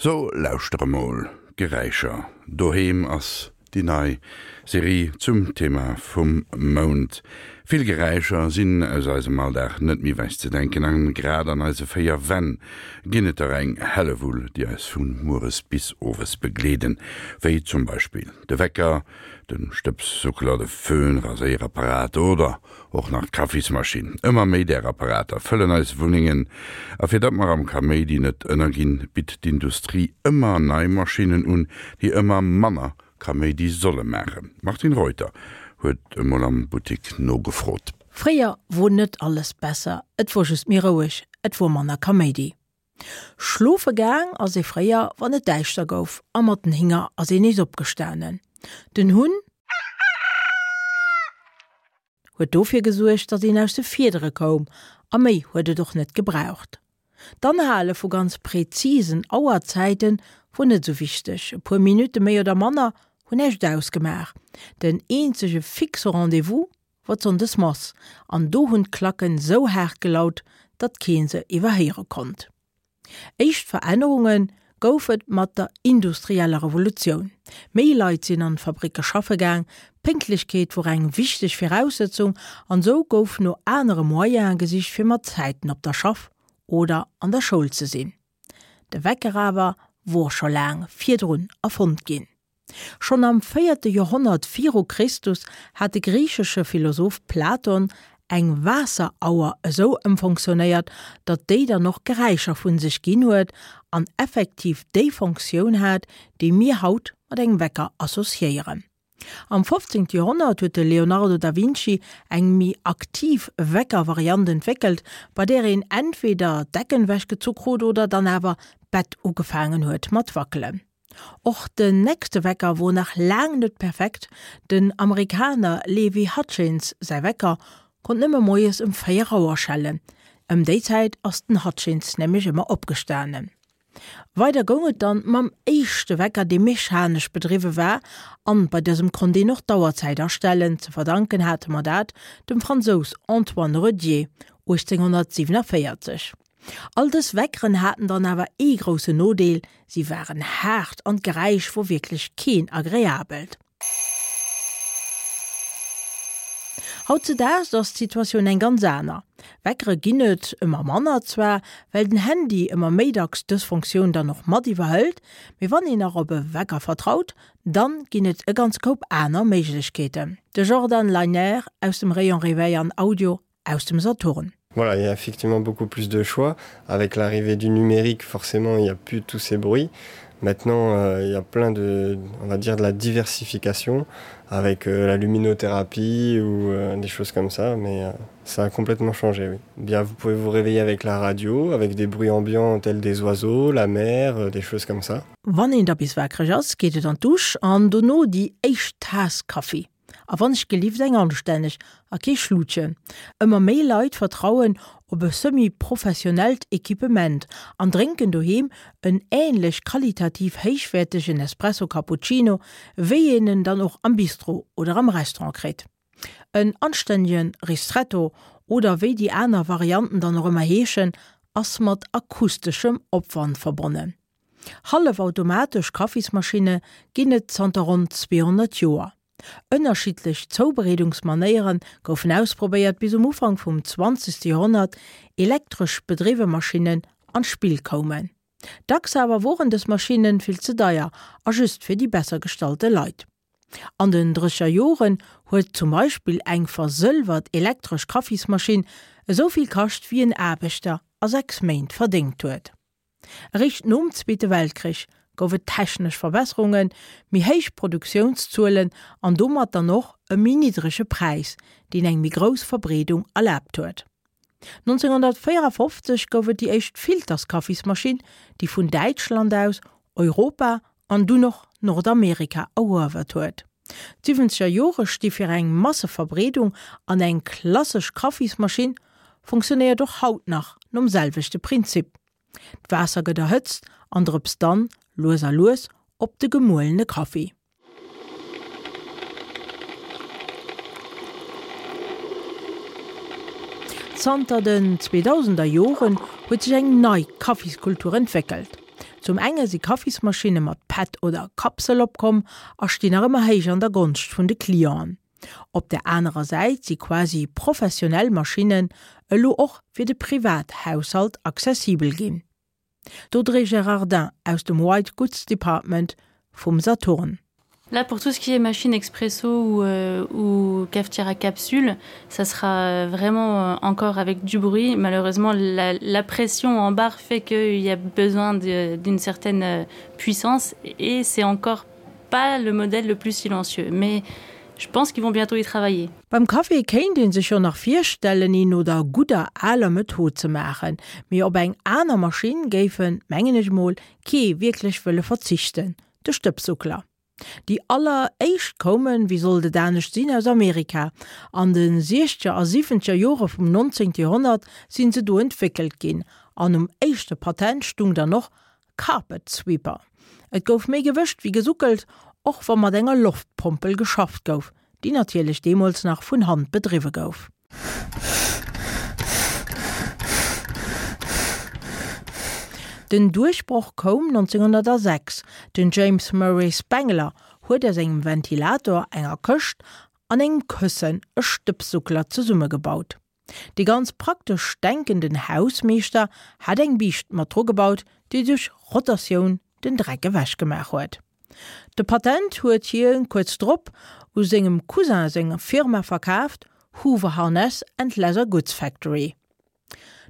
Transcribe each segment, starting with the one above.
So lauschter emol, Geräischer doheem ass déi nei Serie zum Thema vum Mount. Vill Geräischer sinn aus eisem Alldag net méi wech ze denken an grad an eise 4 Wänn ginn et der eng Hellewull, déi eis vu mueres bis owes begleeden, wéi zum Beispill de Wecker, de Stëbssuckler, de Föhn, Raséierapparat oder Och nach d'Kaffismaschinn. Ëmmer méi där Apparater fëllen eis Wunnengen. A fir datt mer am Kaméidi net ënnerginn, bitt d'Industrie ëmmer nei Maschinnen un, déi ëmmer manner Kaméidi solle maachen. D'Martine Reuter huet emol am Buttik nogefrot. Fréier wor net alles besser, et wor just méi roueg, et wor manner Kaméidi. Schlofe gaang ass ee fréier, wann et däischter gouf, a mat den Hinger ass een nees opgestanen. Den Hunn huet dofir gesuergt, datt een aus de Fiedere koum, a méi huet et och net gebraucht. D'Anhale vu ganz präzisen Auerzäite wor net esou wichteg, e puer Minutte méi oder manner hunn näischt ausgemaach. Den eenzege fixe Rendez-vous wor d'Sonndesmass, an do hunn d'Klacken sou haart gelaut, datt kee se iwwerhéiere konnt. Éischt Verännerunge gouf et mat der industrieller Revolutioun. Méi Leit sinn an d'Fabricke schaffe gaang, Pénktlechkeet wor eng wichteg Viraussëtzung an sou gouf no anere Moyene gesicht fir mat Zäiten op der Schaff oder an der Schoul ze sinn. De Wecker awer wor scho laang virdrun erfonnt ginn. Schonn am véierte Joerhonnert viru Christus hat de griichesche Philosoph Platon eng Waasserauer esou ëmfonctionnéiert, datt déi dann och Geräischer vu sech ginn huet an effektiv déi Fonctioun hat, déi mir haut mat engem Wecker associéieren. Am 15. Joerhonnert huet de Leonardo da Vinci eng méi aktiv Wecker-Variant entwéckelt, bei där een entweder d'Decken ewechgezu krut oder dann awer d'Bett ugefaangen huet mat wackelen. Och den nächste Wecker wor nach laang net perfekt, den Amerikaner Levi Hutchins säi Wecker konnt nëmme moies ëm 4 Auer schellen, ëm déi Zäit ass den Hutchins nämlech ëmmer opgestanen. Weider goung et dann mam éischte Wecker dee mechanesch bedriwwe war an bei dësem konnt een och d'Auerzäit astellen, ze verdanken hate mer dat dem Fransous Antoine Redier 1847. All dës Weckeren haten dann awer ee groussen Nodeel, si waren haart an d'Geräisch wor wierklech keen agreabelt. Hautzedaags ass d'Situatioun eng ganz aner. Weckere ginn et ëmmer manner, zwar well den Handy ëmmer méi dacks dës Funktioun dann och mat iwwerhëlt, mee wann een nach op e Wecker vertraut, dann ginn et e ganze Koup aner Méiglechkeeten. De Jordan Leiner aus dem Rayon Réveil an Audio aus dem Saturn. Voilà, il y a effectivement beaucoup plus de choix. Avec l'arrivée du numérique, forcément, il n'y a plus tous ces bruits. Maintenant, euh, il y a plein de, on va dire de la diversification avec euh, la luminothérapie ou euh, des choses comme ça, mais euh, ça a complètement changé. Oui. Bien, vous pouvez vous réveiller avec la radio, avec des bruits ambiants tels des oiseaux, la mer, euh, des choses comme ça. Wann een da bis wakereg ass, geet et an d'Dusch an dono déi éischt Taass Kaffi. A wann ech gelift eng anstänneg a kee Schlutchen. Ëmmer méi Leit vertrauen op e semi-professionellt Equipement an drénken doheem en änlech qualitativ héichwäertegen Espresso Cappuccino, wéi een en dann och am Bistro oder am Restaurant kritt. En anstännege Ristretto oder wéi déi aner Varianten dann och ëmmer heeschen, ass mat akusteschem Opwand verbonnen. Hallefautomatesch Kaffismaschinne ginn et zanter ronn 200 Joer. Ënnerschiddlech Zoubereedungsmanéiere goufen ausprobéiert, bis um Ufank vum 20. Joerhonnert elektresch bedriwwe Maschinnen an d'Spill koumen. Dacks awer woren dës Maschinne vill ze deier a just fir déi besser gestallte Leit. An den drécher Joren huet zum Beispill eng versëlwert elektresch Kaffismaschinn esou vill kascht wéi en Aarbechter a 6 Méint verdéngt huet. Eréischt nom Zweete Weltkrich gouf et technesch Verbesserungen, méi héich Produktiounszuelen an domat dann och e méi niddrege Präis, deen eng méi grouss Verbreedung erlaabt huet. 1954 gouf et déi éischt Filterskaffismaschinn, déi vun Däitschland aus Europa an dunn och Nordamerika eruewert huet. D'Siwwenzeger Jore sti fir eng Masseverbreedung an eng klassesch Kaffismaschinn funktionéiert och haut nach nom selwechte Prinzip. D'Waasser gëtt erhëtzt an drëpst dann, lues a lues, op de gemuelene Kaffi. Zanter den 2000er Joren huet sech eng nei Kaffiskultur entwéckelt. Zum enge si Kaffismaschinne mat Pad oder Kapsel opkomm a stinn nach ëmmer héich an der Gonscht vun de Clienten. Op der anerer Säit si quasi professionell Maschinnen elo och fir de Privathaushalt accessibel ginn. D'Audrey Gerardin aus dem White Goods Department vum Saturn. Là pour tout ce qui est machine expresso ou, euh, ou cafetière à capsule, ça sera vraiment euh, encore avec du bruit. Malheureusement, la, la pression en barre fait qu'il y a besoin d'une certaine euh, puissance et c'est encore pas le modèle le plus silencieux. Mais je pense qu'ils vont bientôt y travailler. Beim Café kéint een sech jo nach virstellen een no der gudder aler Method ze maachen, mee op eng aner Maschinn géifen, mengen ech mol, kee wierklech wëlle verzichten, de Stëbsuckler. Déi aller éischt koumen, wéi sollt et anescht sinn, aus Amerika. An de siechzeger a siwwenzeger Jore vum nonzéngte Joerhonnert sinn se do entwéckelt ginn an um éischte Patent stung dann och Carpet Sweeper. Et gouf méi gewëscht wéi gesuckelt, och wa mat enger Loftpompel geschafft gouf, déi natierlech deemools nach vun Hand bedriwwe gouf. Den Duerchbroch koum 1906, den James Murray Spangler huet aus engem Ventilator, enger Këscht an engem Këssen e Stëbssuckler zesummegebaut. Dee ganz praktesch denkenden Hausmeeschter hat eng Biischt mat dru gebaut, déi duerch Rotatioun den Dreck ewech gemaach huet. De Patent huet hie kuerz drop u sengem Cousin seng Firma verkaaft, Hoover Harness and Leather Goods Factory.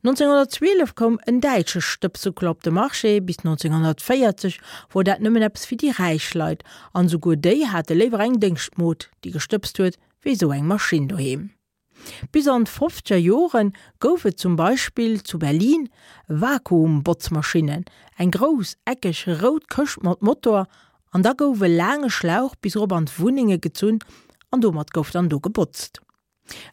1912 koum en däitsche Stëbsuckler op de Marché, bis 1940 wor dat nëmmen eppes fir déi räich Leit, an esouguer déi hate léiwer eng Déngschtmod, déi gestëbst huet, wéi esou eng Maschinn doheem. Bis an d'fofzeger Jore gouf et zum Beispill zu Berlin Vakuumbotzmaschinnen, eng grouss, eckeg, rout Këscht mat Motor, an da gouf e laange Schlauch bis erop an d'Wunnenge gezunn an domat gouf dann do gebotzt.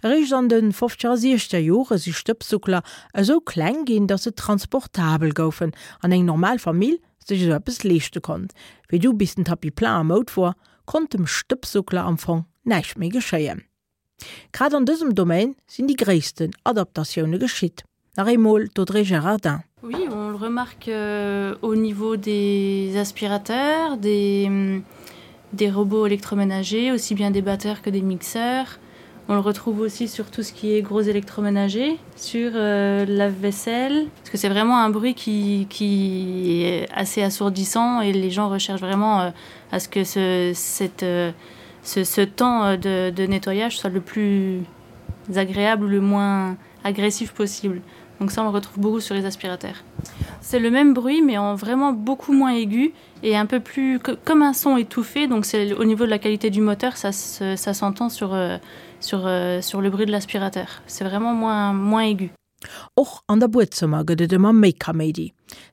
Eréischt an de fofzeger a siechzeger Jore si Stëbssuckler esou kleng ginn, datt se transportabel goufen an eng normal Famill sech esou eppes leeschte konnt. Wéi du bis den Tapis plein a Moud wor, konnt dem Stëbssuckler am Fong näischt méi geschéien. Grad an dësem Domaine sinn déi gréissten Adaptatioune geschitt. Nach eemol d'Audrey Gerardin. Oui, on le remarque euh, au niveau des aspirateurs, des, des robots électroménagers, aussi bien des batteurs que des mixeurs. On le retrouve aussi sur tout ce qui est gros électroménager, sur euh, la vaisselle, parce que c'est vraiment un bruit qui, qui est assez assourdissant et les gens recherchent vraiment euh, à ce que ce, cette, euh, ce, ce temps euh, de, de nettoyage soit le plus agréable ou le moins agressif possible. Donc ça on le retrouve beaucoup sur les aspirateurs. C'est le même bruit mais en vraiment beaucoup moins aigu et un peu plus que, comme un son étouffé donc c'est au niveau de la qualité du moteur ça ça s'entend sur euh, sur euh, sur le bruit de l'aspirateur. C'est vraiment moins moins aigu. Och an der Buedzëmmer gëtt et ëmmer méi Kaméidi.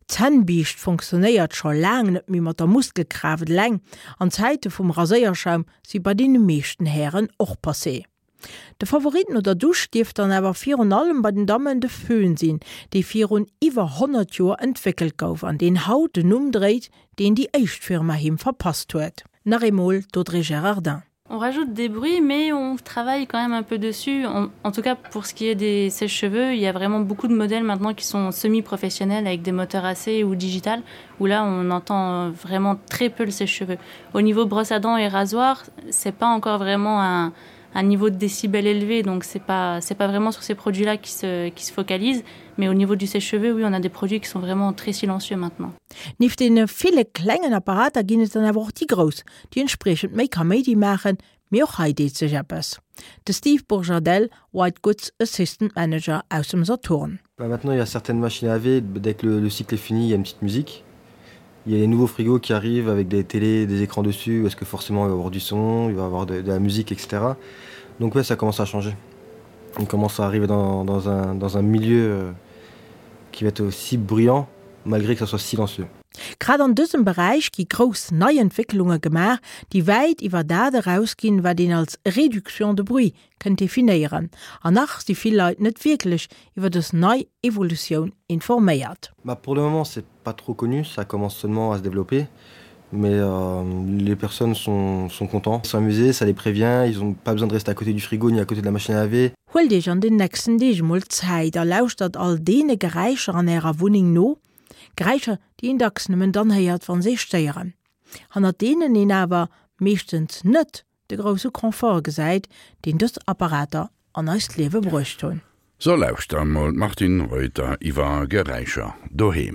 D'Zännbiischt fonctionnéiert scho laang net méi mat der Muskelkraaft eleng an d'Zäite vum Raséierschaum si bei deene meeschten Hären och passé. De Favorit no der Dusch dierft dann awer virun allem bei den Dammen de Föhn sinn, dee virun iwwer 100 Joer entwéckelt gouf an deen haut den Numm dréit, deen déi éischt Firma him verpasst huet. Nach eemol d'Audrey Gerardin. On rajoute des bruits, mais on travaille quand même un peu dessus. On, en tout cas, pour ce qui est des sèche-cheveux, il y a vraiment beaucoup de modèles maintenant qui sont semi-professionnels avec des moteurs AC ou digital, où là, on entend vraiment très peu le sèche-cheveux. Au niveau brosse à dents et rasoir, c'est pas encore vraiment un, un niveau de décibels élevé, donc c'est pas, c'est pas vraiment sur ces produits-là qui se, qui se focalisent. Mais au niveau du sèche-cheveux, oui, on a des produits qui sont vraiment très silencieux maintenant. Nieft deene ville klengen Apparater ginn et dann awer och déi grouss, déi entspriechend méi Kaméidi maachen, mee och hei deet sech eppes. De Steve Bourjadel, White Goods Assistant Manager aus dem Saturn. Bah maintenant il y a certaines machines à laver, dès que le, le cycle est fini, il y a une petite musique. Il y a les nouveaux frigos qui arrivent avec des télés, des écrans dessus, parce que forcément il va y avoir du son, il va y avoir de, de la musique, etc. Donc ouais, ça commence à changer. On commence à arriver dans, dans, un, dans un milieu euh, qui va être aussi bruyant malgré que ça soit silencieux. Grad an dësem Beräich gi grouss nei Entwécklunge gemaach, déi wäit iwwer dat erausginn, wat een als Réduction de bruit kënnt definéieren. An nach si vill Leit net wierklech iwwer dës nei Evolutioun informéiert. Bah pour le moment c'est pas trop connu, ça commence seulement à se développer mais euh, les personnes sont, sont contents, sont amusés, ça les prévient, ils ont pas besoin de rester à côté du frigo ni à côté de la machine à laver. Huelt Iech an den nächsten Deeg emol Zäit a lauschtert all deene Geräischer an Ärer Wunneng no. Geräischer, déi een dacks nëmmen dann héiert, wa se ee stéieren. Hannert deenen een awer meeschtens net de grousse Confort gesäit, deen dës Apparater an eist Liewe bruecht hunn. So lauschter mol d'Martine Reuter iwwer Geräischer doheem.